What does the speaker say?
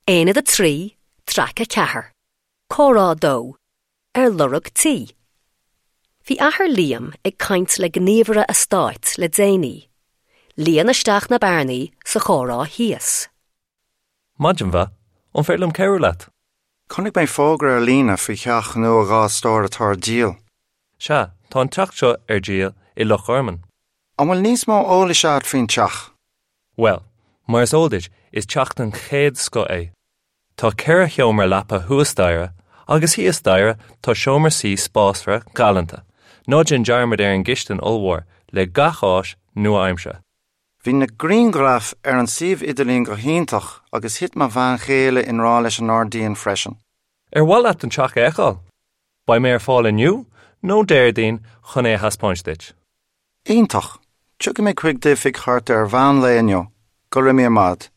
Aonad 3, Traic 4, Comhrá 2, Ar lorg tí. Bhí athair Liam ag caint le gníomhaire eastáit le déanaí. Líon isteach na bearnaí sa chomhrá thíos. Maidin mhaith, an féidir liom cabhrú leat? Chonaic mé fógra ar líne faoi theach nua 2 stór atá ar díol. Sea, tá an teach seo ar díol i Loch Garman. An bhfuil níos mó eolais agat faoin teach? Bhuel, mar is eol duit, is teach den chéad scoth é. Tá 4 sheomra leapa thuas staighre, agus thíos staighre tá seomra suí spásmhar galánta. Ná déan dearmad ar an gcistin ollmhór, le gach áis nua-aimseartha. Bhí na grianghraif ar an suíomh idirlín go hiontach agus thit mo bhean chéile i ngrá leis an ngairdín freisin. Ar mhaith leat an teach a fheiceáil? Beidh mé ar fáil inniu nó Déardaoin chun é a thaispeáint duit. Iontach! Tiocfaidh mé chuig d'oifig thart ar mheán lae inniu. Go raibh míle maith agat.